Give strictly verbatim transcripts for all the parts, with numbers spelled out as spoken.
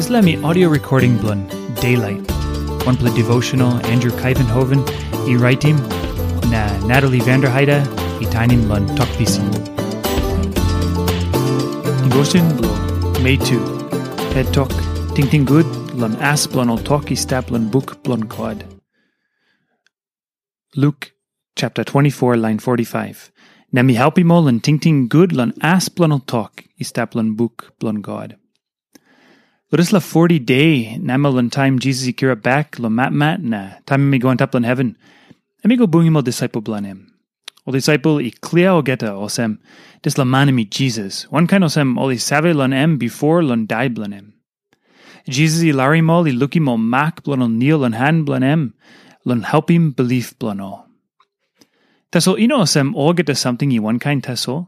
Dispela mi audio recording bilong Daylight, wanpela devotional Andrew Kuyvenhoven i raitim, na Natalie Vanderheide i tainim long tok pisin. Devotion bilong Mei tu, het tok, tingting gut long as bilong ol tok i stap long buk bilong God. Luk chapter twenty-four, line forty-five. Na mi helpim ol long tingting gut long as bilong ol tok i stap long buk bilong God. Lo dispela forty de namel long taim Jisas i kirap bek long matmat na taim em i go antap long heven, em i go bungim ol disaipel bilong em. Ol disaipel i klia olgeta olsem, dispela man em i Jisas, wankain olsem ol i save long em bipo long dai bilong em. Jisas i larim ol i lukim ol mak bilong ol nil long han bilong em, long helpim bilip bilong ol. Tasol i no olsem olgeta samting i wankain tasol.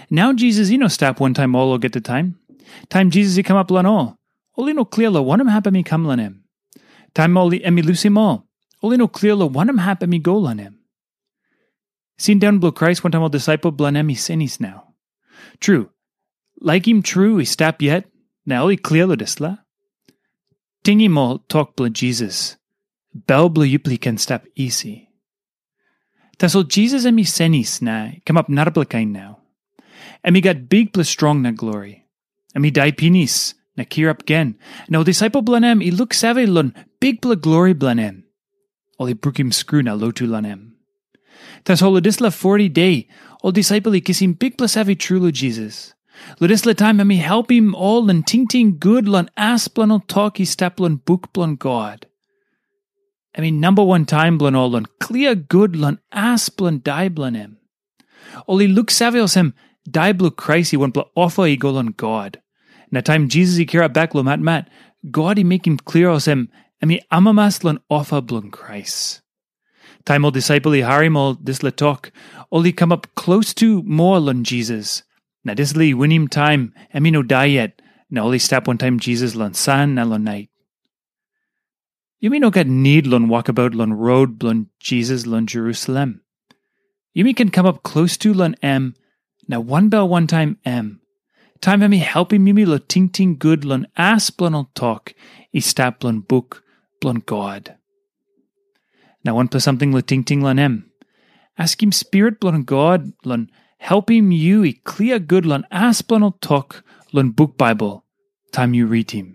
Nau Jisas i no stap wantaim ol olgeta taim. Taim Jisas i kamap long ol, ol i no klia long wanem hap em i kam long em. Taim ol i- em i lusim ol, ol i no klia long wanem hap em i go long em. Sindaun bilong Krais wantaim ol disaipel bilong em i senis nau. Tru, laikim tru i stap yet, na ol i klia long dispela. Tingim ol tok bilong Jisas, bel bilong yupela i ken stap isi. Tasol Jisas em i senis na i kamap narapela kain nau. Em i gat bikpela strong na glori. Em i dai pinis na kirap gen, na ol disaipel bilong em i luksave long bikpela glori bilong em. Ol i brukim skru na lotu long em. Tasol long dispela forty de, ol disaipel i kisim bikpela save tru long Jisas. Long dispela taim em i helpim ol long tingting gut long as bilong ol tok i stap long buk bilong God. Em i namba wan taim bilong ol long klia gut long as bilong dai bilong em. Ol i luksave olsem, dai bilong Krais i wanpela ofa i go long God. Na taim Jisas i kirap bek long matmat, God i mekim klia olsem, em i amamas long ofa bilong Krais. Taim ol disaipel i harim ol dispela tok, ol i kamap klostu moa long Jisas. Na dispela i winim taim em i no dai yet, na ol i stap wantaim Jisas long san na long nait. Yumi no gat nid long wokabaut long rot bilong Jisas long Jerusalem. Yumi ken kamap klostu long em, na wanbel wantaim em, taim em i helpim yumi long tingting gut long as bilong ol tok i stap long buk bilong God. Na wanpela samting long tingting long em. Askim Spirit bilong God long helpim yu i klia gut long as bilong ol tok long buk Baibel taim yu ritim.